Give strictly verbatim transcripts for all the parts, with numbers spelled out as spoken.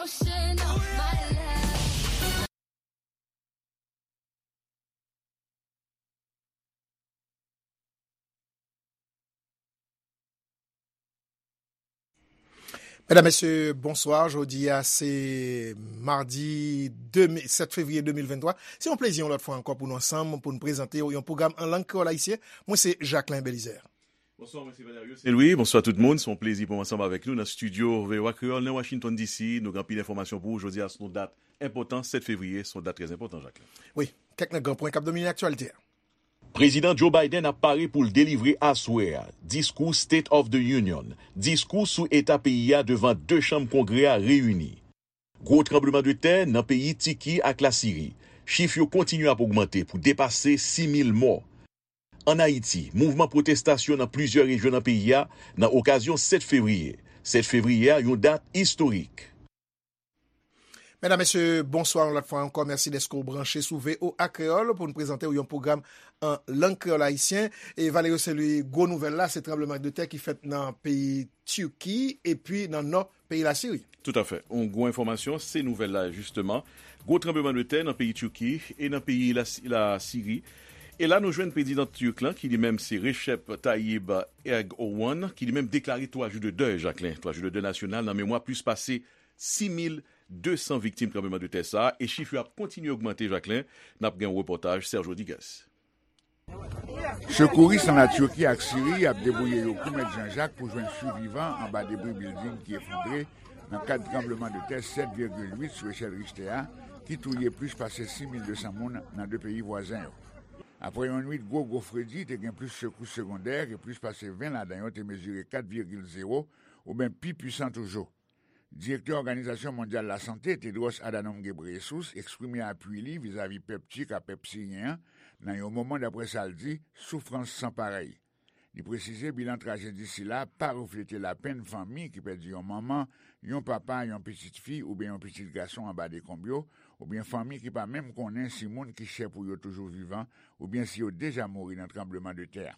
Medam, mesye, bonswa. Jodi a, se madi de me, sèt fevriye de mil venntwa. Se yon plezi yon lòt fwa ankò pou nou ansanm, pou nou prezante w yon pwogram an lang kreyòl ayisyen. Mwen se Jacquelin Belizaire. Bonswa, mwen se Valerio Saint-Louis. Bonswa tout moun. Se yon plezi pou m ansanm avèk nou nan estidyo V O A Kreyòl nan Washington D C. Nou gen anpil enfòmasyon pou ou. Jodi a, se yon dat enpòtan, sèt fevriye, se yon dat trè enpòtan, Jacquelin. Wi, kèk nan gran pwen k ap domine aktyalite a. Prezidan Joe Biden ap pare pou l delivre aswè a diskou State of the Union, diskou sou eta peyi a devan de chanm Kongrè a reyini. Gwo tranblemanntè nan peyi Tiki ak Lasiri. Chif yo kontinye ap ogmante pou depase sis mil mò. Ann Ayiti, mouvman pwotestasyon nan plizyè rejyon nan peyi a nan okazyon sèt fevriye. Sèt fevriye a, yon dat istorik. Medam, mesye, bonswa yon lòt fwa ankò. Mèsi dèske w branche sou V O A Kreyòl pou n prezante w yon pwogram an lang kreyòl ayisyen. E Valerio Saint-Louis, gwo nouvèl la, se tranblemanntè ki fèt nan peyi Tiki epi nan nò peyi Lasiri. Toutafè. Yon gwo enfòmasyon, se nouvèl la, jisteman. Gwo tranblemanntè nan peyi Tiki e nan peyi Lasi-, Lasiri. E la, nou jwenn prezidan Tirk lan, ki li menm se Recep Tayyip Erdogan, ki li menm deklare twa jou de dèy, Jacquelin, twa jou de dèy nasyonal nan memwa plis pase sis mil de san viktim tranblemanntè sa a, e chif yo ap kontinye ogmante, Jacquelin. N ap gen yon repòtaj Serge Rodriguez. Sekouris nan Latiki ak Siri ap debouye yo kou mèt Janjak pou jwenn sivivan anba debri bilding ki efondre nan kad tranblemanntè sèt vigil uit sou echèl Richter a, ki touye plis pase sis mil de san moun nan de peyi vwazen yo. Apre yon nwit gwo, gwo fredi, te gen plis sekous segondè ke plis pase ven ladan yo te mezire kat vigil zewo, oubyen pi pwisan toujou. Direktè Òganizasyon Mondyal Lasante, Tedros Adhanom Ghebreyesus, eksprime apui li vizavi pèp Tik ak pèp siryen an nan yon moman, daprè sa l di, soufrans san parèy. Li presize bilan trajedi sila pa reflete lapenn fanmi ki pèdi yon manman, yon papa, yon pitit fi oubyen yon pitit gason anba dekonb yo, oubyen fanmi ki pa menm konnen si moun ki chè pou yo toujou vivan oubyen si yo deja mouri nan tranblemanntè a.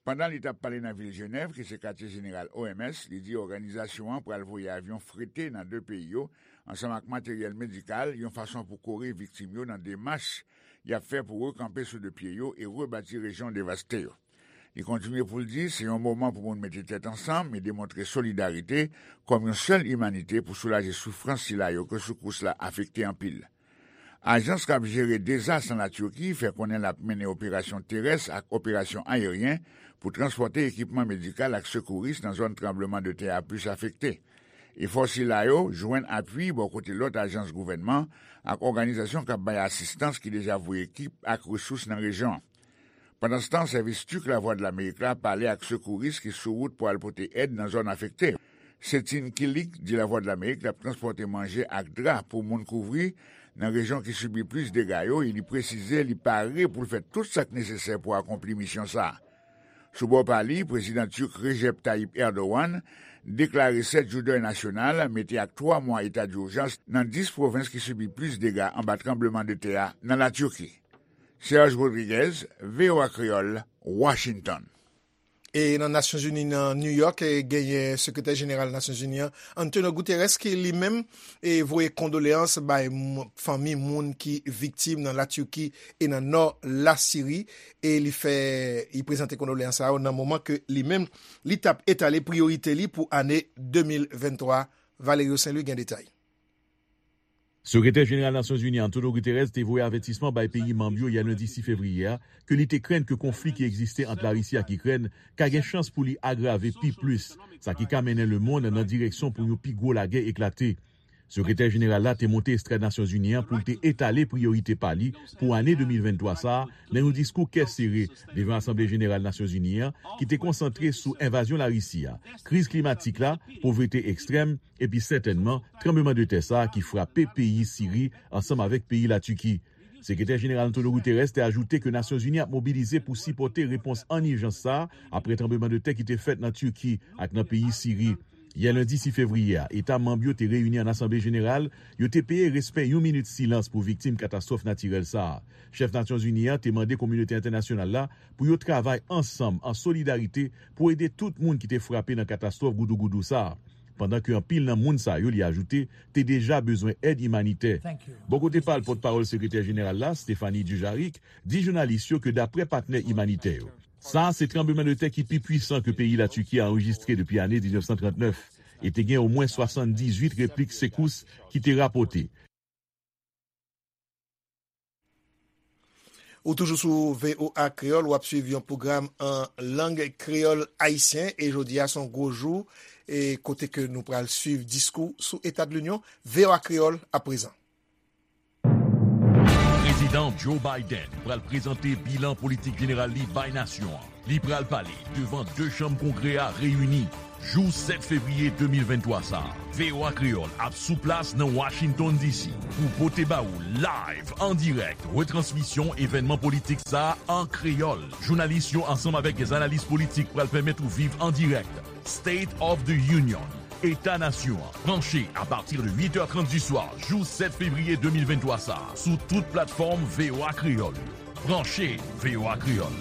Pandan li t ap pale nan vil Jenèv, ki se katye jeneral O M S, li di òganizasyon an pral voye avyon frete nan de peyi yo, ansanm ak materyèl medikal, yon fason pou kore viktim yo nan demach y ap fè pou rekanpe sou de pye yo e rebati rejyon devaste yo. Li kontinye pou l di se yon moman pou moun mete tèt ansanm e demontre solidarite kòm yon sèl imanite pou soulaje soufrans sila yo ke sekous la afekte anpil. Ajans k ap jere dezas nan Latiki fè konnen l ap mennen operasyon terès ak operasyon ayeryen pou transpòte ekipman medikal ak sekouris nan zòn tranblemanntè a plis afekte. Efò sila yo jwenn apui bò kote lòt ajans gouvènman ak òganizasyon k ap bay asistans ki deja voye ekip ak resous nan rejyon an. Pandanstan, sèvis Tik Lavwadlamerik la pale ak sekouris ki sou wout pou al pote èd nan zòn afekte. Setin Kilik di Lavwadlamerik l ap transpòte manje ak dra pou moun kouvri nan rejyon ki sibi plis dega yo e li presize li pare pou l fè tout sa k nesesè pou akonpli misyon sa a. Sou bò pa li, prezidan Tik Recep Tayyip Erdogan deklare sèt jou dèy nasyonal, mete ak twa mwa eta dijans nan dis pwovens ki sibi plis dega anba tranblemanntè a nan Latiki. Serge Rodriguez, V O A Kreyòl, Washington. E nan Nasyonzini, nan New York, e genyen sekretè jeneral Nasyonzini an, Antonio Guterres, ki li menm, e voye kondoleyans bay m-, fanmi moun ki viktim nan Latiki e nan nò Lasiri, e li fè, li prezante kondoleyans sa yo nan moman ke li menm, li t ap etale priyorite li pou ane de mil venntwa. Valerio Saint-Louis gen detay. Sekretè jeneral Nasyonzini Antonio Guterres te voye avètisman bay peyi manm yo yè lendi sis fevriye a ke li te krenn ke konfli ki egziste ant Larisi ak Ikrèn ka gen chans pou li agrave pi plis, sa ki ka mennen lemonn nan direksyon pou yon pi gwo lagè eklate. Sekretè jeneral la te monte estrad Nasyonzini an pou l te etale priyorite pa li pou ane de mil venntwa sa a nan yon diskou kè sere devan Asanble Jeneral Nasyonzini an ki te konsantre sou envazyon Larisi a, kriz klimatik la, povrete ekstrèm, epi sètènman tranblemanntè sa a ki frape peyi Siri ansanm avèk peyi Latiki. Sekretè jeneral Antonio Guterres te ajoute ke Nasyonzini ap mobilize pou sipòte repons an ijans sa a apre tranblemanntè ki te fèt nan Tiki ak nan peyi Siri. Yè lendi sis fevriye a, eta manm yo te reyini an Asanble Jeneral, yo te peye respè yon minit silans pou viktim katastwòf natirèl sa a. Chèf Nasyonzini an te mande kominote entènasyonal la pou yo travay ansanm, an solidarite, pou ede tout moun ki te frape nan katastwòf goudougoudou sa a. pandan ke anpil nan moun sa yo, li ajoute, te deja bezwen èd imanitè. Bò kote pa l, pòtpawòl Sekretè Jeneral la, Stéphanie Dujarric, di jounalis yo ke daprè patnè imanitè yo, sa a se tranblemanntè ki pi pwisan ke peyi Latiki a anrejistre depi ane diznèf san trannèf, e te gen omwen swasanndizuit replik sekous ki te rapòte. Ou toujou sou V O A Kreyòl, w ap swiv yon pwogram an lang kreyòl ayisyen, e jodi a se yon gwo jou, e kote ke nou pral swiv diskou sou Eta de Linyon, V O A Kreyòl aprezan. Prezidan Joe Biden pral prezante bilan politik jeneral li bay nasyon an. Li pral pale devan de chanm Kongrè a reyini jou sèt fevriye de mil venntwa sa a. V O A Kreyòl ap sou plas nan Washington D C pou pote ba ou live, an dirèk, retransmisyon evènman politik sa a an kreyòl. Jounalis yo ansanm avèk dè analis politik pral pèmèt ou viv an dirèk State of the Union, Eta Nasyon an. Branche apati de uit è trant di swa jou sèt fevriye de mil venntwa sa a sou tout platfòm V O A Kreyòl yo. Branche V O A Kreyòl.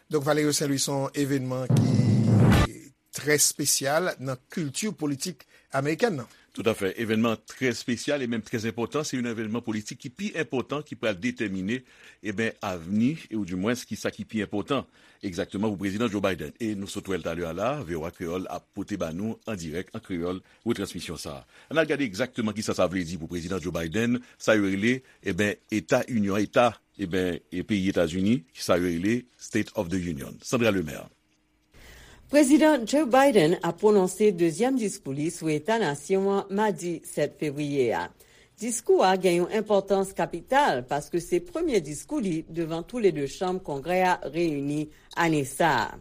Donk, Valerio Saint Louis se yon evènman ki trè espesyal nan kilti politik amerikèn nan. Toutafè. Evènman trè espesyal e menm trè enpòtan. Se yon evènman politik ki pi enpòtan, ki pral detèmine, e ben, avni, e oudimwens, ki sa ki pi enpòtan egzakteman pou Prezidan Joe Biden. E nou sot wè l talè a la, V O A Kreyòl ap pote ba nou an dirèk, an kreyòl, retransmisyon sa a. Ann al gade egzakteman ki sa sa vle di pou Prezidan Joe Biden, sa yo rele, e ben, Eta Inyon, Eta, e ben, e peyi Etazini, ki sa yo rele State of the Union. Sandra Lemaire. Prezidan Joe Biden ap pwononse dezyèm diskou li sou Eta Nasyon an madi sèt fevriye a. Diskou a gen yon enpòtans kapital paske se premye diskou li devan toulede chanm Kongrè a reyini ane sa a.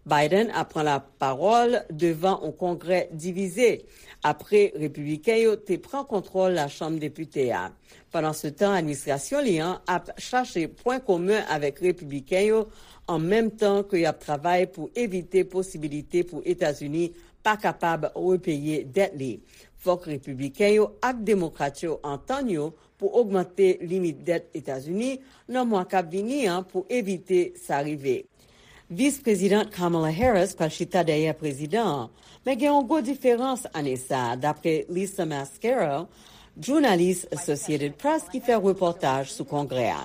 Biden ap pran lapawòl devan yon Kongrè divize apre Repibliken yo te pran kontwòl Lachanm Depite a. Pandansetan, administrasyon li an ap chache pwen komen avèk Repibliken yo, an menm tan ke y ap travay pou evite posibilite pou Etazini pa kapab repeye dèt li. Fòk Repibliken yo ak Demokrat yo antann yo pou ogmante limit dèt Etazini nan mwa k ap vini an pou evite sa rive. Vis Prezidan Kamala Harris pral chita dèyè prezidan an, men gen yon gwo diferans ane sa a, dapre Lisa Mascaro, jounalis Associated Press ki fè repòtaj sou Kongrè a.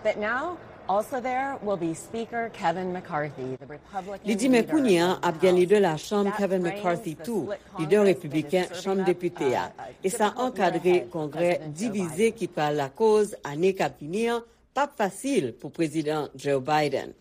But now, also there will be Speaker Kevin McCarthy, the Republican leader of the House. Li di, men kounye a ap gen lidè Lachanm Kevin McCarthy tou, lidè repibliken Chanm Depite a, e sa ankadre Kongrè divize ki pral lakoz ane k ap vini an p ap fasil pou Prezidan Joe Biden.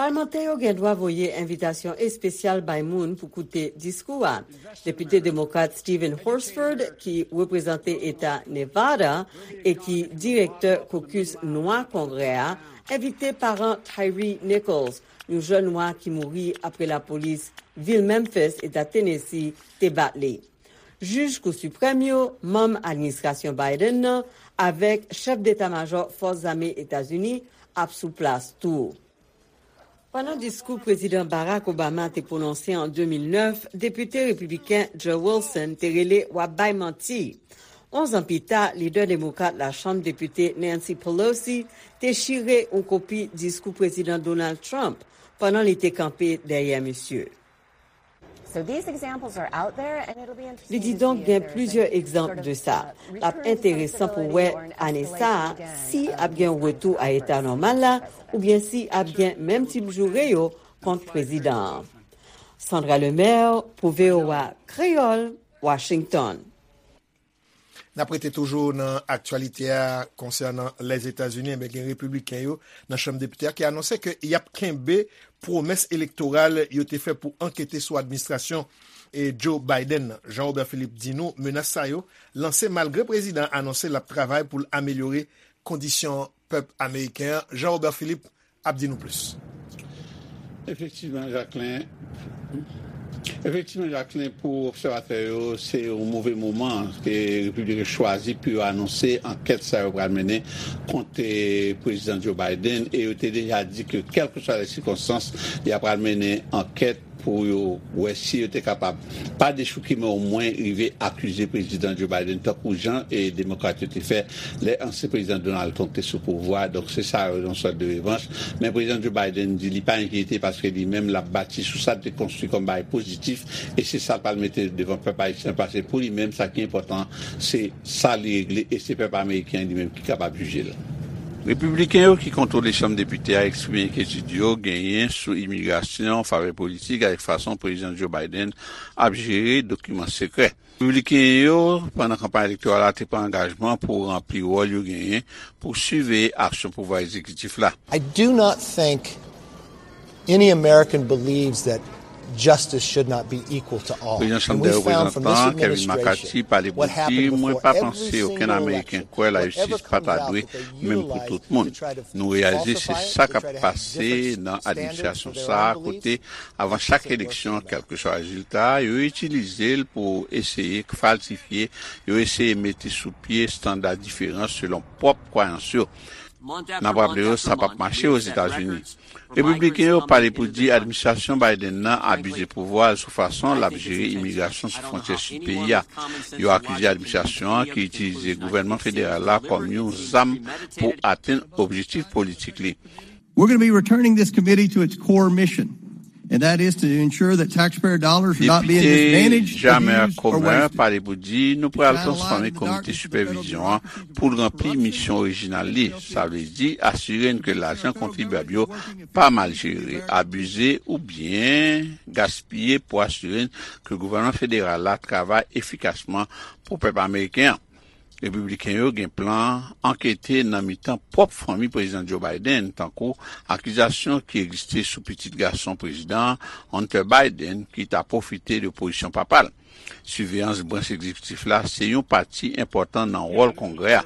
Palmantè yo gen dwa voye envitasyon espesyal bay moun pou koute diskou a. Depite demokrat Stephen Horsford, ki reprezante eta Nevada e ki direktè kokis nwa Kongrè a, envite paran Tyre Nichols, yon jèn nwa ki mouri apre lapolis vil Memphis, eta Tennessee, te bat li. Jij Kou Siprèm yo, manm administrasyon Biden nan, avèk chèf deta majò Fòs Zame Etazini ap sou plas tou. Pandan diskou Prezidan Barack Obama te pwononse an de mil nèf, depite repibliken Joe Wilson te rele w ap bay manti. Onz an pita, lidè demokrat Lachanm Depite Nancy Pelosi te chire yon kopi diskou Prezidan Donald Trump pandan li te kanpe dèyè misye. So these examples are out there, and it'll be interesting to see if there's Li di donk gen plizyè egzanp de sa. L ap enteresan pou wè ane sa a si ap gen yon retou a eta nòmal la oubyen si ap gen menm tip joure yo kont prezidan an. Sandra Lemaire pou V O A Kreyòl, Washington. N ap rete toujou nan aktyalite a konsènan Lèzetazini. Enben, gen repibliken yo nan Chanm Depite a ki anonse ke y ap kenbe pwomès elektoral yo te fè pou ankete sou administrasyon e Joe Biden nan. Jean Robert Philippe di nou menas sa yo lanse malgre prezidan an anonse l ap travay pou l amelyore kondisyon pèp ameriken an. Jean Robert Philippe ap di nou plis. Efektivman, Jacquelin. Efektivman, Jacquelin, pou obsèvatè yo, se yon move moman ke Repiblik yo chwazi pou yo anonse ankèt sa yo pral mennen kont, eh, Prezidan Joe Biden, e yo te deja di ke, kèlkeswa lè sikonstans, y a pral mennen ankèt pou yo wè si yo te kapab pa dechouke, men omwen rive akize Prezidan Joe Biden, tankou jan e Demokrat yo te fè lè ansyen Prezidan Donald Trump te sou pouvwa. Donk, se sa yon sòt de revanch. Men Prezidan Joe Biden di li pa enkyete paske li menm l ap bati sou sa l te konstwi kòm bagay pozitif, e se sa l pral mete devan pèp ayisyen, paske pou li menm, sa ki enpòtan, se sa li regle, e se pèp ameriken an li menm ki kapab jije l. Repibliken yo ki kontwole Chanm Depite a eksprime enkyetid yo genyen sou imigrasyon, favè politik, avèk fason Prezidan Joe Biden ap jere dokiman sekrè. Repibliken yo, pandan kanpay elektoral la, te pran angajman pou ranpli wòl yo genyen pou siveye aksyon pouvwa egzekitif la. I do not think any American believes that justice should not be equal to all. Prezidan Chanm dè Reprezantan Kevin McCarthy pale pou di, mwen pa panse okenn Ameriken kwè lajistis pa ta dwe menm pou tout moun. Nou reyalize se sa k ap pase nan administrasyon sa a, kote avan chak eleksyon, kèlkeswa rezilta a, yo itilize l pou eseye falsifye, yo eseye mete sou pye estanda diferan selon pwòp kwayans yo. N ap raple yo, sa p ap mache Ozetazini. Repibliken yo pale pou di administrasyon Biden nan abize pouvwa l sou fason l ap jere imigrasyon sou fwontyè sid peyi a. Yo akize administrasyon an ki itilize gouvènman federal la kòm yon zam pou atenn objektif politik li. We're going to be returning this committee to its core mission, and that is to ensure that taxpayer dollars are not being mismanaged, abused, or wasted. Depite Jamer Comer pale pou di nou pral transfòme komite sipèvizyon an pou l ranpli misyon orijinal li, sa vle di asire n ke lajan kontribyab yo pa mal jere, abize oubyen gaspiye, pou asire n ke gouvènman federal la travay efikasman pou pèp ameriken an. Repibliken yo gen plan ankete nan mitan pwòp fanmi Prezidan Joe Biden, tankou akizasyon ki egziste sou pitit gason prezidan an, Hunter Biden, ki ta pwofite de pozisyon papa l. Siveyans branch egzekitif la se yon pati enpòtan nan wòl Kongrè a.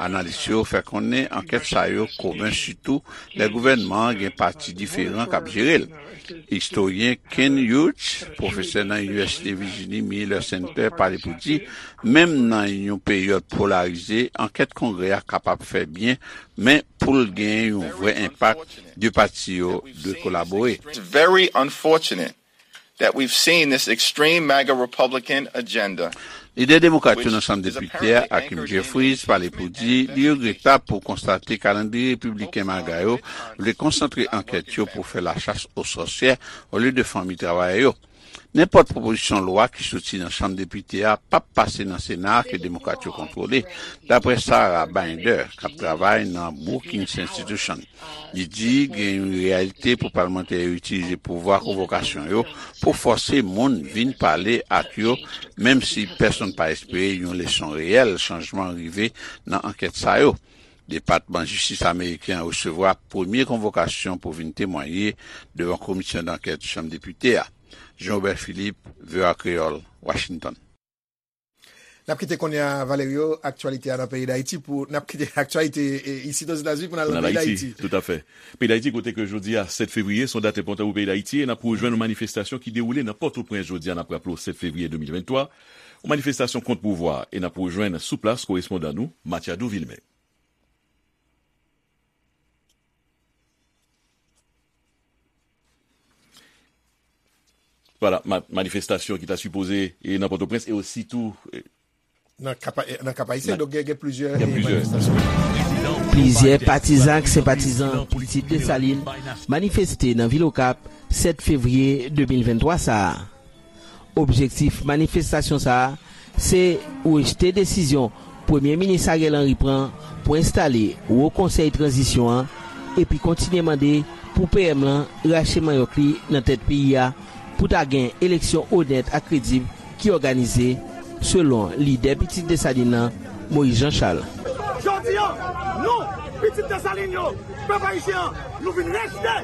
Analis yo fè konnen ankèt sa yo komen sitou lè gouvènman an gen pati diferan k ap jere l. Istoryen Ken Hughes, pwofesè nan Universite Virginie Miller Center, pale pou di, menm nan yon peryòd polarize, ankèt Kongrè a kapab fè byen, men pou l gen yon vrè enpak, de pati yo dwe kolabore. It's very unfortunate that we've seen this extreme MAGA Republican agenda. Lidè demokrat yo nan Chanm Depite a, Hakeem Jeffries, pale pou di li regretab pou konstate kalandriye repibliken MAGA yo vle konsantre ankèt yo pou fè lachas o sòsyè olye de fanmi travayè yo. Nenpòt pwopozisyon lwa ki soti nan Chanm Depite a p ap pase nan Sena a ke demokrat yo kontwole, dapre Sarah Binder, k ap travay nan Brookings Institution. Li di gen yon reyalite pou palmantè yo itilize pouvwa konvokasyon yo pou fòse moun vin pale ak yo, menm si pèsonn pa espere yon leson reyèl chanjman rive nan ankèt sa yo. Depatman Jistis ameriken an resevwa premye konvokasyon pou vin temwaye devan komisyon dankèt Chanm Depite a. Jean Robert Philippe, V O A Kreyòl, Washington. N ap kite kounye a, Valerio, aktyalite a nan peyi Dayiti pou, n ap kite aktyalite, e, isit Ozetazini pou n al nan peyi Dayiti. Toutafè. Peyi Dayiti, kote ke jodi a, sèt fevriye, se yon dat enpòtan pou peyi Dayiti, e n ap rejwenn yon manifestasyon ki dewoule nan Pòtoprens jodi a, n ap raple w, sèt fevriye de mil venntwa, yon manifestasyon kont pouvwa, e n ap rejwenn sou plas korespondan nou, Matiado Vilmé. Vwala, ma-, manifestasyon ki ta sipoze, e, nan Pòtoprens e osi tou, e, nan Kap, e, nan Kap Ayisyen, donk gen, gen plizyè, gen, e, plizyè manifestasyon. Plizyè patizan ak senpatizan Pitit Desalin manifeste nan vil Okap sèt fevriye de mil venntwa sa a. Objektif manifestasyon sa a, se rejte desizyon Premye Minis Ariel Henry pran pou enstale Wo Konsèy Tranzisyon an, epi kontinye mande pou P M lan rache manyòk li nan tèt peyi a, pou ta gen eleksyon onèt ak kredib ki òganize, selon lidè Pitit Desalin nan, Moïse Jean Charles. Jodi a, nou, Pitit Desalin yo, pèp ayisyen an, nou vin rejte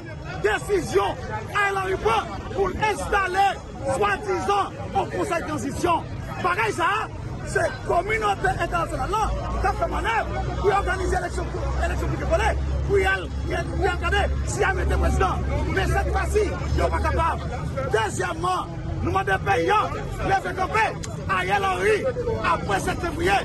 desizyon Ariel Henry pran pou l enstale swadizan yon konsèy tranzisyon. Bagay sa a, se kominote entènasyonal lan k ap fè mannèv pou y òganize eleksyon, eleksyon pike kole, pou y al, pou y al gade si y a mete prezidan. Men sèt fwa si, yo pa kapab. Dezyèmman, nou mande peyi an leve kanpe. Ariel Henry, apre sèt fevriye,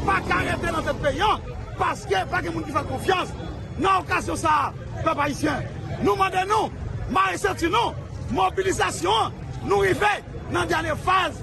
pa ka rete nan tèt peyi an, paske pa gen moun ki fè l konfyans. Nan okazyon sa a, pèp ayisyen, nou mande nou mare senti nou, Mobilizasyon an, nou rive nan dènye faz.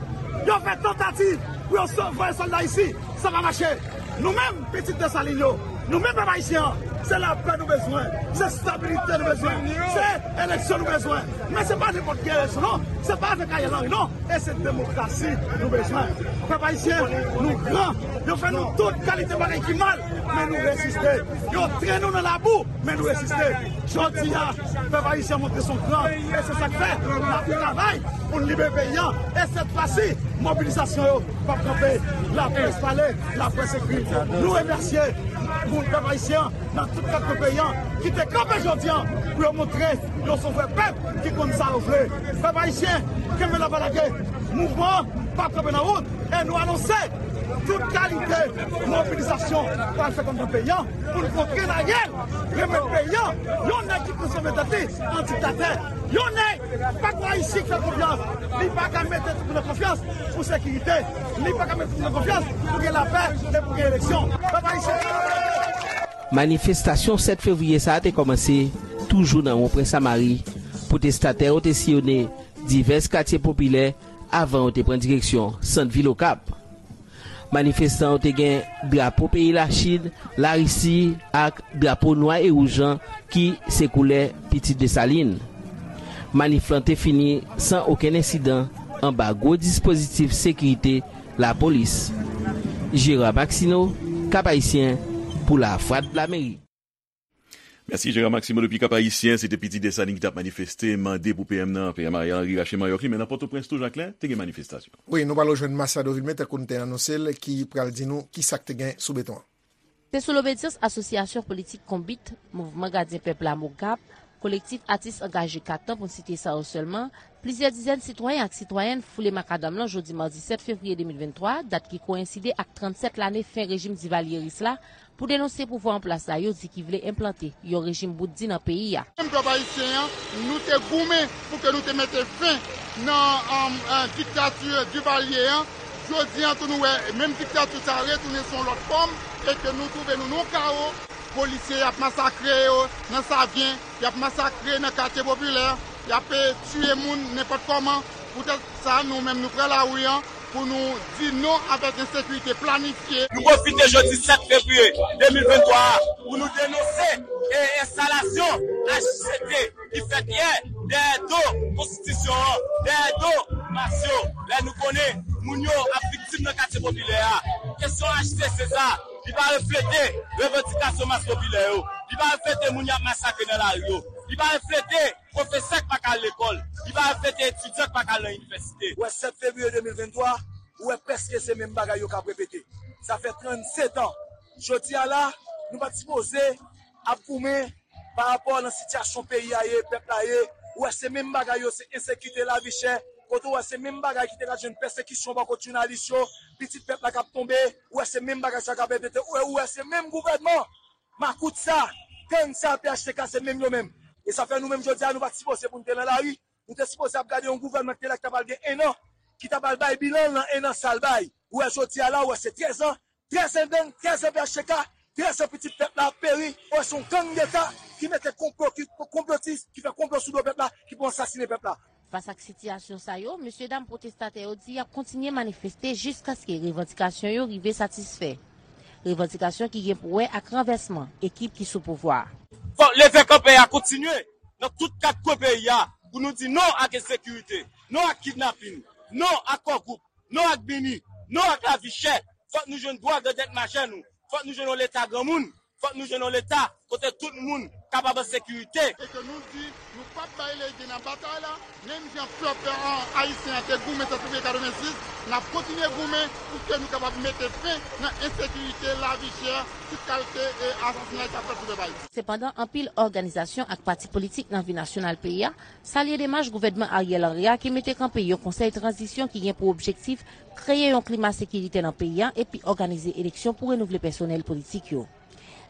Yo fè tantativ pou yo so-, voye sòlda isi, sa pa mache. Nou menm, pitit Desalin yo, nou menm pèp ayisyen an, se lapè nou bezwen, se stabilite nou bezwen, se eleksyon nou bezwen. Men se pa nenpòt ki eleksyon non, se pa avèk Ariel Henry non, e se demokrasi nou bezwen. Pèp ayisyen, nou gran, yo fè nou tout kalite bagay ki mal, men nou reziste. Yo trennen nou nan labou, men nou reziste. Jodi a, pèp ayisyen montre son gran, e se sa k fè n ap travay pou n libere peyi an. E sèt fwa si, mobilizasyon yo p ap kanpe. Laprès pale, laprès ekri. Nou remèsye moun pèp ayisyen nan tout kat kwen peyi an ki te kanpe jodi a pou yo montre yo se yon vrè pèp ki konn sa yo vle. Pèp ayisyen, kenbe la pa lage. Mouvman an p ap kanpe nan wout. E nou anonse tout kalite mobilizasyon pral fèt anndan peyi an pou n kontre Ariel, remèt peyi an yon nèg ki transfòme tèt li an diktatè. Yon nèg pa ka isi fè konfyans. Li pa ka mete tout moun nan konfyans pou sekirite. Li pa ka mete tout moun nan konfyans pou gen lapè e pou gen eleksyon. Pèp ayisyen. Manifestasyon sèt fevriye sa a te kòmanse toujou nan Wonpwen Samari, pwotestatè yo te siyone divès katye popilè avan yo te pran direksyon sant vil Okap. Manifestan yo te gen drapo peyi Lachin, Larisi ak drapo nwa e wouj lan ki se koulè Pitit Desalin. Manif lan te fini san okenn ensidan anba gwo dispozitif sekirite lapolis. Gérard Maxineau, Cap Haïtien, pou Lavwadlamerik. Mèsi, Gérard Maxineau depi Cap Haïtien. Se te Pitit Desalin ki t ap manifeste, mande pou P M nan, P M Ariel Henry rache mayòk li, men nan Pòtoprens tou, Jacquelin, te gen manifestasyon. Wi, nou pral rejwenn Marcel Dovilme, tankou n te anonse l, ki pral di nou ki sa k te gen sou beton an. Se sou lobedyans Asosyasyon Politik Konbit, Mouvman Gadyen Pèp la, MOGAP, Kolektif Atis Angaje Katan, pou n site sa yo sèlman, plizyè dizèn sitwayen ak sitwayèn foule makadam lan jodi madi sèt fevriye de mil venntwa, dat ki koyenside ak trannsèt lane fen rejim divalyeris la, pou denonse pouvwa an plas la yo di ki vle enplante yon rejim bout di nan peyi a. Menm pèp ayisyen an, nou te goumen pou ke nou te mete fen nan, um, uh, diktati Divalye an. Jodi an tou nou wè menm diktati sa a retounen sou yon lòt fòm e ke nou twouve nou nan yon kawo. Polisye y ap masakre yo nan Savyen, y ap masakre nan katye popilè, y ap, eh, tiye moun nenpòt kòman. Poutèt sa, nou menm nou pran lari an pou nou di non avèk ensekirite planifye. Nou pwofite jodi sèt fevriye de mil venntwa a pou nou denonse, eh, enstalasyon H C T ki fèt yè dèyè do konstitisyon an, dèyè do mas yo, lè nou konnen moun yo ap viktim nan katye popilè a. Kesyon H C C sa, li pa reflete revandikasyon mas popilè yo, li pa reflete moun y ap masakre nan lari yo, li pa reflete pwofesè k pa ka al lekòl, li pa reflete etidyan k pa ka al nan inivèsite. Ou wè sèt fevriye de mil venntwa, ou wè prèske se menm bagay yo k ap repete. Sa fè trannsetan. Jodi a la, nou pa t sipoze ap goumen pa rapò nan sitiyasyon peyi a ye, pèp la ye. Ou wè se menm bagay yo, se ensekirite, lavi chè. Kote ou wè se menm bagay ki te ka jwenn pèsekisyon bò kot jounalis yo, pitit pèp la k ap tonbe. Ou wè se menm bagay sa k ap repete. Ou wè, ou wè se menm gouvènman makout sa, gang sa, P H T K, se menm yo menm. E sa fè nou menm jodi a, nou pa t sipoze pou n te nan lari. Nou te sipoze ap gade yon gouvènman ki te la ki ta pral gen en an, ki ta pral bay bilan l nan en an sa l bay. Ou wè jodi a la, ou wè se trèz an, trèz an gang, trèz an P H T K, trèz an pitit pèp la ap peri. Ou wè se yon gang deta ki mete konplo, ki konplotis, ki fè konplo sou do pèp la, ki pou ansasinen pèp la. Fas ak sitiyasyon sa yo, mesyedam pwotestatè yo di y ap kontinye manifeste jiskaske revandikasyon yo rive satisfè. Revandikasyon ki gen pou wè ak ranvèsman ekip ki sou pouvwa a. Fòk leve kanpe a kontinye nan tout kat kwen peyi a pou nou di non ak ensekirite, non ak kidnapin, non ak kò gwoup, non ak bini, non ak lavi chè. Fòk nou jwenn dwa grandèt majè nou. Fòk nou jwenn yon leta granmoun. Fòk nou jwenn yon leta kote tout moun kapab an sekirite. E ke nou di, nou p ap bay lege nan batay la, menm jan pèp, eh, ayisyen an te goumen sèt fevriye katrevensis, n ap kontinye goumen pou ke nou kapab mete fen nan ensekirite, lavi chè, tout kalite, eh, asasinay k ap fèt sou pèp ayisyen. Sepandan, anpil òganizasyon ak pati politik nan vi nasyonal peyi a salye demach gouvènman Ariel Henry a ki mete kanpe yon konsèy tranzisyon ki gen pou objektif kreye yon klima sekirite nan peyi a epi òganize eleksyon pou renouvle pèsonèl politik yo.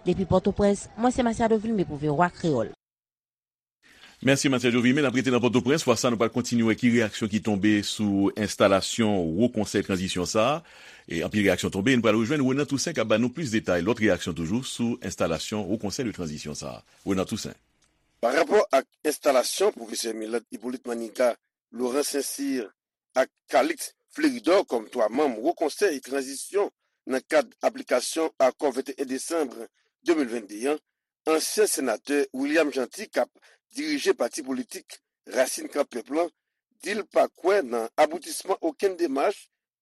Depi Pòtoprens, mwen se Matiado Vilmé pou V O A Kreyòl. Mèsi, Matiado Vilmé. N ap rete nan Pòtoprens. Fwa sa, nou pral kontinye wè ki reyaksyon ki tonbe sou enstalasyon Wo Konsèy Tranzisyon sa a. E anpil reyaksyon tonbe. Nou pral rejwenn Renan Toussaint k ap ba nou plis detay, lòt reyaksyon toujou sou enstalasyon Wo Konsèy de Tranzisyon sa a. Renan Toussaint. Pa rapò ak enstalasyon pwofesè Milad Hyppolite Maniga, Laurent Saint-Cyr ak Calixte Fleuridor kòm twa manm Wo Konsèy Tranzisyon nan kad aplikasyon akò venteyen desanm de mil vennde an, ansyen senatè William Jeanty k ap dirije pati politik Rasin Kan Pèp lan di l pa kwè nan aboutisman okenn demach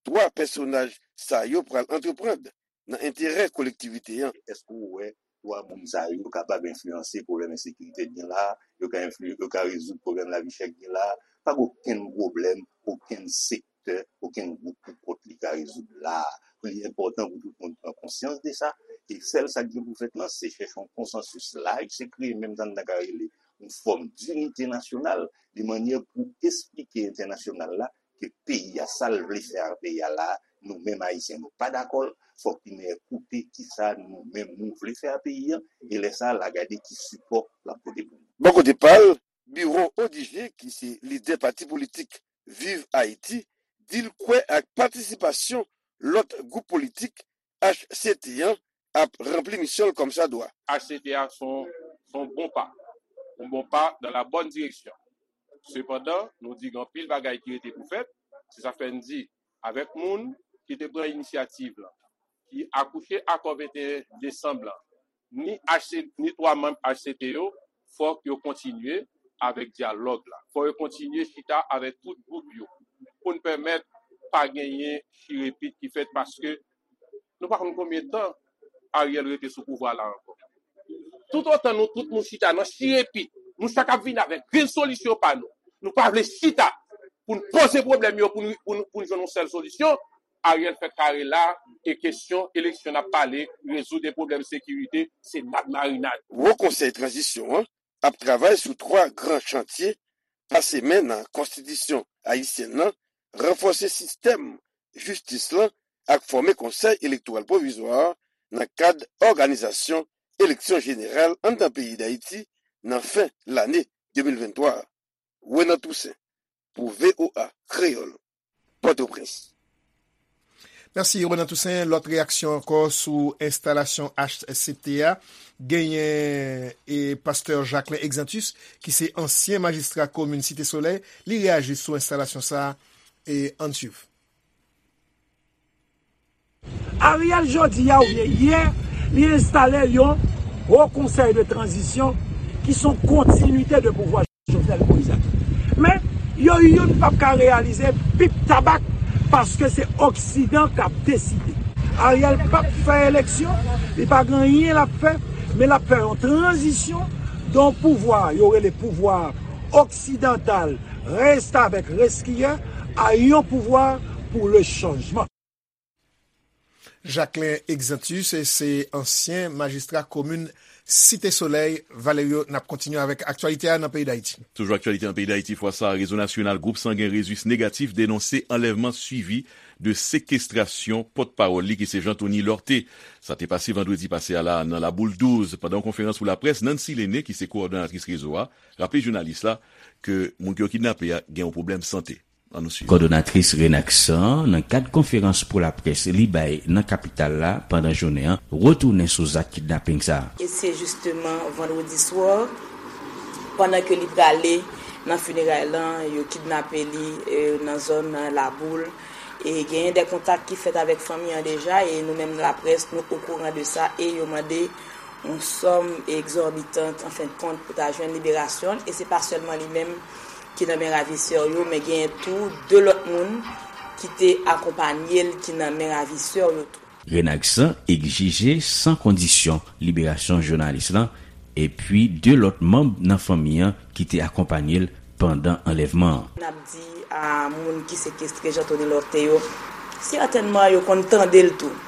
twa pèsonaj sa yo pral antreprann nan enterè kolektivite an. Èske w wè twa moun sa yo kapab enfliyanse pwoblèm ensekirite k gen la a? Yo ka enfli-, yo ka rezoud pwoblèm lavi chè k gen la a? Pa gen okenn pwoblèm, okenn sektè, okenn gwoup pou kont li ka rezoud la a. Li enpòtan pou tout moun pran konsyans de sa. E sèl sa k gen pou fèt lan, se chèche yon konsansis laj, se kreye menm sa n ta ka rele yon fòm dinite nasyonal, de mannyè pou esplike entènasyonal la ke peyi a, sa l vle fè a peyi a la, nou menm Ayisyen, nou pa dakò l. Fòk li men koute kisa nou menm nou vle fè a peyi a, e lè sa a, l a gade ki sipò l ap pote pou nou. Bò kote pa l, Biwo Odigé, ki se lidè pati politik Viv Ayiti, di l kwè ak patisipasyon lòt gwoup politik H C T an ap ranpli misyon l kòmsadwa. H C T a se yon, se yon bon pa, yon bon pa dans la bonne direction. Sepandan, nou di gen anpil bagay ki rete pou fèt. Se sa fè n di, avèk moun ki te pran inisyativ lan, ki akouche akò venteyen desanm lan, ni H C, ni twa manm H C T yo, fòk yo kontinye avèk dyalòg la. Fòk yo kontinye chita avèk tout gwoup yo pou n pèmèt pa genyen chirepit ki fèt, paske nou pa konn konbyen tan Ariel rete sou pouvwa la ankò. Toutotan nou tout nou chita nan chirepit, nou chak ap vin avèk rezolisyon pa nou. Nou pa vle chita pou n poze pwoblèm yo, pou n, pou n, pou n jwenn yon sèl solisyon. Ariel fè kare la, e kesyon eleksyon n ap pale, rezoud e pwoblèm sekirite, se nad marinad. Wo Konsèy Tranzisyon an ap travay sou twa gran chantye: pase men nan konstitisyon ayisyèn nan, ranfòse sistèm jistis lan ak fòme Konsèy Elektoral Pwovizwa a nan kad òganizasyon eleksyon jeneral anndan peyi Dayiti nan fen lane de mil venntwa a. Renan Toussaint, pou V O A Kreyòl, Pòtoprens. Mèsi, Renan Toussaint. Lòt reyaksyon ankò sou enstalasyon H C T a. Genyen, e, pastè Jacquelin Exantus, ki se ansyen majistra komin Site Solèy. Li reyaji sou enstalasyon sa a, e ann swiv. Ariel jodi a oubyen yè, li enstale yon Wo Konsèy de Tranzisyon ki se yon kontinite de pouvwa Jovenel Moïse la. Men, yo youn p ap ka reyalize pip tabak paske se Oksidan k ap deside. Ariel p ap fè eleksyon, li pa gen anyen l ap fè, men l ap fè yon tranzisyon de yon pouvwa yo rele pouvwa oksidantal, restavèk, reskiyè, a yon pouvwa pou le chanjman. Jacquelin Exantus, se ansyen majistra komin Site Solèy. Valerio, n ap kontinye avèk aktyalite a nan peyi Dayiti. Toujou aktyalite nan peyi Dayiti, fwa sa a, rezo nasyonal gwoup sangen Rezis Negatif denonse anlèvman swivi de sekestrasyon pòtpawòl li ki se Jean Thony Lorthé. Sa te pase vandredi pase a la nan Laboul douz. Pandan yon konferans pou laprès, Nancy Lene, ki se kowòdonatris rezo a, raple jounalis la ke moun ke yo kidnape a gen yon pwoblèm sante. Ann nou swiv. Kòdonatris Renaksan, nan kad konferans pou laprès li bay nan kapital la pandan jounen an, retounen sou zak kidnaping sa a. E se jisteman vandredi swa, pandan ke li prale nan fineray lan, yo kidnape li, e, nan zòn Laboul. E genyen de kontak ki fèt avèk fanmi an deja, e nou menm laprès, nou okouran de sa, e yo mande yon sòm egzòbitant, an fen de kont, pou ta jwenn liberasyon l. E se pa sèlman li menm ki nan men ravisè yo, men genyen tou de lòt moun ki te akonpanye l ki nan men ravisè yo tou. Renaksan egzije san kondisyon liberasyon jounalis lan epi de lòt manm nan fanmi an ki te akonpanye l pandan anlèvman an. N ap di a moun ki sekestre Jean Thony Lorthé yo, sètènman yo konn tande l tou.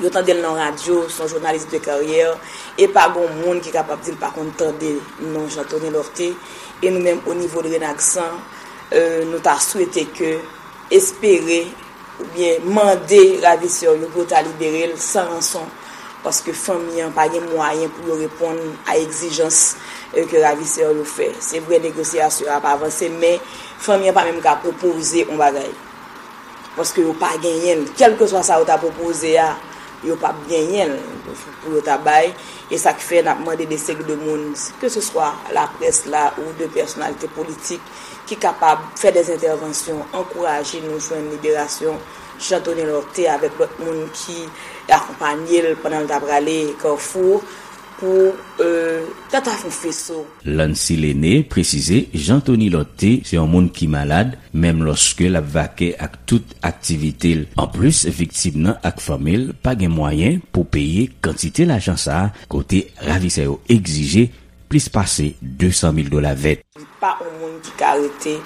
Yo tande l nan radyo, se yon jounalis de karyè, e pa gon moun ki kapab di l pa konn tande non Jean Thony Lorthé. E nou menm, o nivo de Renaksan, e, nou ta swete ke, espere, oubyen mande ravisè yo pou yo ta libere l san ranson, paske fanmi an pa gen mwayen pou yo reponn a egzijans, e, ke ravisè yo fè. Se vre, negosyasyon an ap avanse, men fanmi an pa menm ka pwopoze yon bagay. Paske yo pa genyen l. Kèlkeswa sa yo ta pwopoze a, Yo p ap genyen l pou yo ta bay. E sa k fè n ap mande de seri de moun, keseswa laprès la ou de pèsonalite politik, ki kapab fè de entèvansyon, ankouraje nou jwenn liberasyon Jean Tony Lorthé avèk lòt moun ki akonpanye l pandan l t ap prale Kafou pou, e, tata fon feso. Lancy Lene presize Jean Tony Lorthé se yon moun ki malad, menm lòske l ap vake ak tout aktivite l. Anplis, viktim nan ak fanmi l pa gen mwayen pou peye kantite lajan sa a, kote ravisè yo egzije plis pase de san mil dola vèt. Li pa yon moun ki ka rete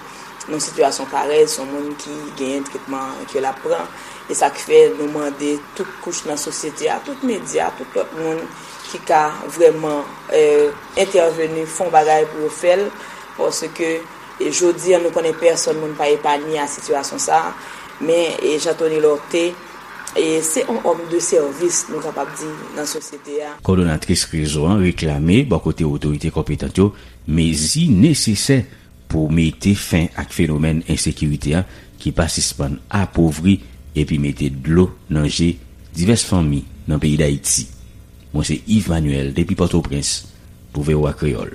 nan sitiyasyon parèy, se yon moun ki genyen tretman ke l ap pran. E sa k fè nou mande tout kouch nan sosyete a, tout medya, tout lòt moun ki ka vrèman, e, entèveni, fè yon bagay pou yo fè l, paske, e, jodi a, nou konnen pèsonn moun pa epanye a sitiyasyon sa a, men, e, Jean Tony Lorthé, e, se yon òm de sèvis, nou kapab di, nan sosyete a. Kòdonatris rezo an reklame bò kote otorite konpetan yo mezi nesesè pou mete fen ak fenomèn ensekirite a ki pa sispann apovri epi mete dlo nan je divès fanmi nan peyi Dayiti. Mwen se Yves Manuel depi Pòtoprens pou V O A Kreyòl.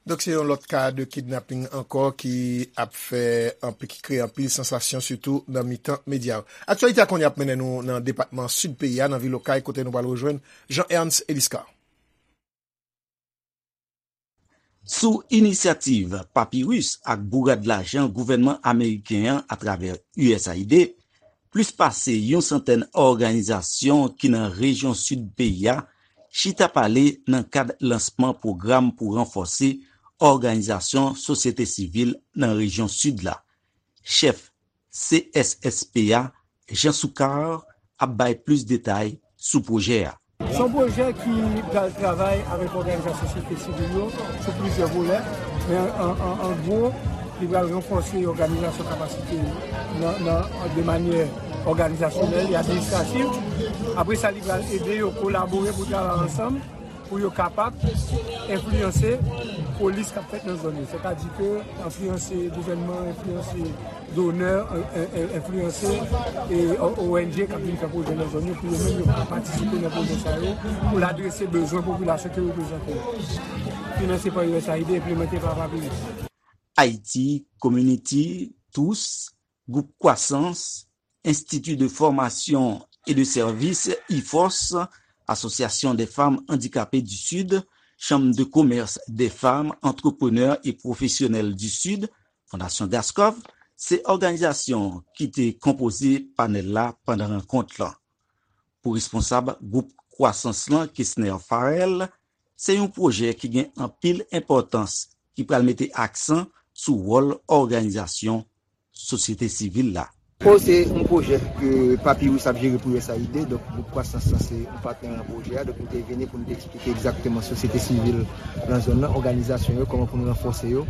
Donk, se yon lòt ka de kidnaping ankò ki ap fè anpi-, ki kreye anpil sansasyon, sitou nan mitan medya yo. Aktyalite a kounye a ap mennen nou nan depatman Sid peyi a, nan vil Okay, kote nou pral rejwenn Jean Ernst Eliscar. Sou inisyativ Papyrus ak bourad lajan gouvènman ameriken an atravè U S A I D, plis pase yon santèn òganizasyon ki nan rejyon sid peyi a chita pale nan kad lansman pwogram pou ranfòse òganizasyon sosyete sivil nan rejyon sid la. Chèf C S S P a, Jean Soukar, ap bay plis detay sou pwojè a. Se yon pwojè ki pral travay avèk òganizasyon sosyete sivil yo sou plizyè volè, men an, an, an gwo, li pral ranfòse òganizasyon kapasite nan, nan, de manyè òganizasyonèl e administrativ. Apre sa, li pral ede yo kolabore pou travay ansanm, pou yo kapab enfliyanse polis k ap fèt nan zòn yo. Sètadi ke enfliyanse gouvènman, enfliyanse donè, en-, en-, enfliyanse, e, O-, O N G k ap vin fè pwojè nan zòn yo, pou yo menm yo ka patisipe nan pwojè sa yo, pou l adrese bezwen popilasyon ke yo reprezante yo. Finanse pa U S A I D, enplimante pa Papyrus. Haiti Community, tous, Gwoup Kwasans, Institut de Formation et de Service, IFORS, Association des Femmes Handicapées du Sud, Chambre de Commerce des Femmes Entrepreneurs et Professionnelles du Sud, Fondasyon Gaskov, se òganizasyon ki te konpoze panèl la pandan rankont lan. Pou responsab gwoup Kwasans lan, Kesner Farrell, se yon pwojè ki gen anpil enpòtans ki pral mete aksan sou wòl òganizasyon sosyete sivil la. Fo se yon pwojè ke Papyrus ap jere pou U S A I D, donk gwoup Kwasans lan se yon patnè nan pwojè a, donk nou te vini pou nou te eksplike egzakteman sosyete sivil nan zòn nan, òganizasyon yo, kòman pou nou ranfòse yo,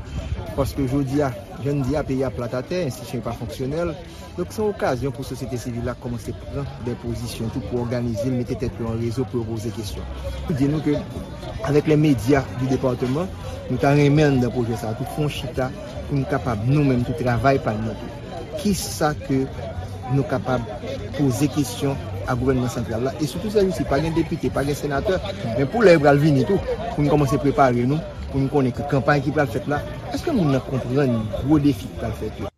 paske jodi a, jan n di a, peyi a plat atè, enstitisyon yo pa fonksyonèl, donk se yon okazyon pou sosyete sivil la kòmanse pran de pozisyon tou pou òganize l, mete tèt yo an rezo pou yo poze kesyon. Pou di nou ke avèk lè medya di depatman, nou ta renmen anndan pwojè sa a tou fè yon chita pou nou kapab nou menm tou travay pa n nan tou. Kisa ke nou kapab poze kesyon a gouvènman santral la? E sitou sèjousi, pa gen depite, pa gen senatè, men pou lè yo pral vini tou, pou nou kòmanse prepare nou, pou nou konnen ke kanpay ki pral fèt la, èske moun nan konprann gwo defi ki pral fèt yo?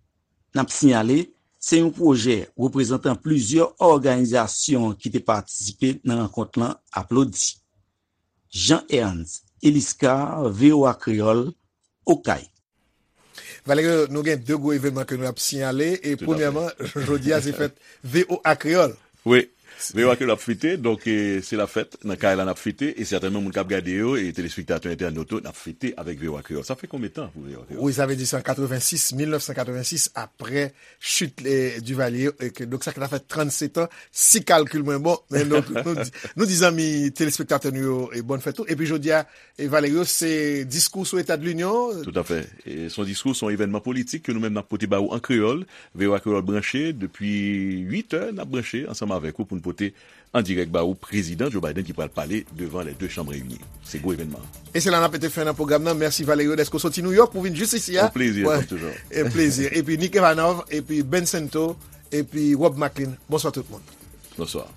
N ap siyale, se yon pwojè reprezantan plizyè òganizasyon ki te patisipe nan rankont lan aplodi. Jean Ernst Eliscar, V O A Kreyòl, Okay. Valerio, nou gen de gwo evènman ke nou ap siyale. E premyèman, jodi a se fèt V O A Kreyòl. Wi, V O A Kreyòl ap fete, donk, e, se la fèt. Nan kay la n ap fete, e sètènman moun k ap gade yo, e telespektatè entènot yo, n ap fete avèk V O A Kreyòl. Sa fè konbyen tan pou V O A Kreyòl? Wi, sa vle di se an katrevensis, mil nèf san katrevensis, aprè chit, e, Duvalier, e ke, donk, sa ki ta fè trannsetan, si kalkil mwen bon, men donk, nou di, nou di zanmi telespektatè nou yo, e, bòn fèt tou. Epi jodi a, e, Valerio, se diskou sou Eta de Linyon. Toutafè. E, se yon diskou, se yon evènman politik ke nou menm n ap pote ba ou an kreyòl. V O A Kreyòl branche, depi uit è, n ap branche ansanm avèk ou pou n pote an dirèk ba ou, Prezidan Joe Biden ki pral pale devan les deux chambres réunies. Se gwo evènman. E se la n ap mete fen nan pwogram nan. Mèsi Valerio dèske w soti New York pou vin jis isi a. Yon plezi, kòm toujou. E plezi. Epi Nick Evanov, epi Ben Sento, epi Rob Maclean. Bonswa tout moun. Bonswa.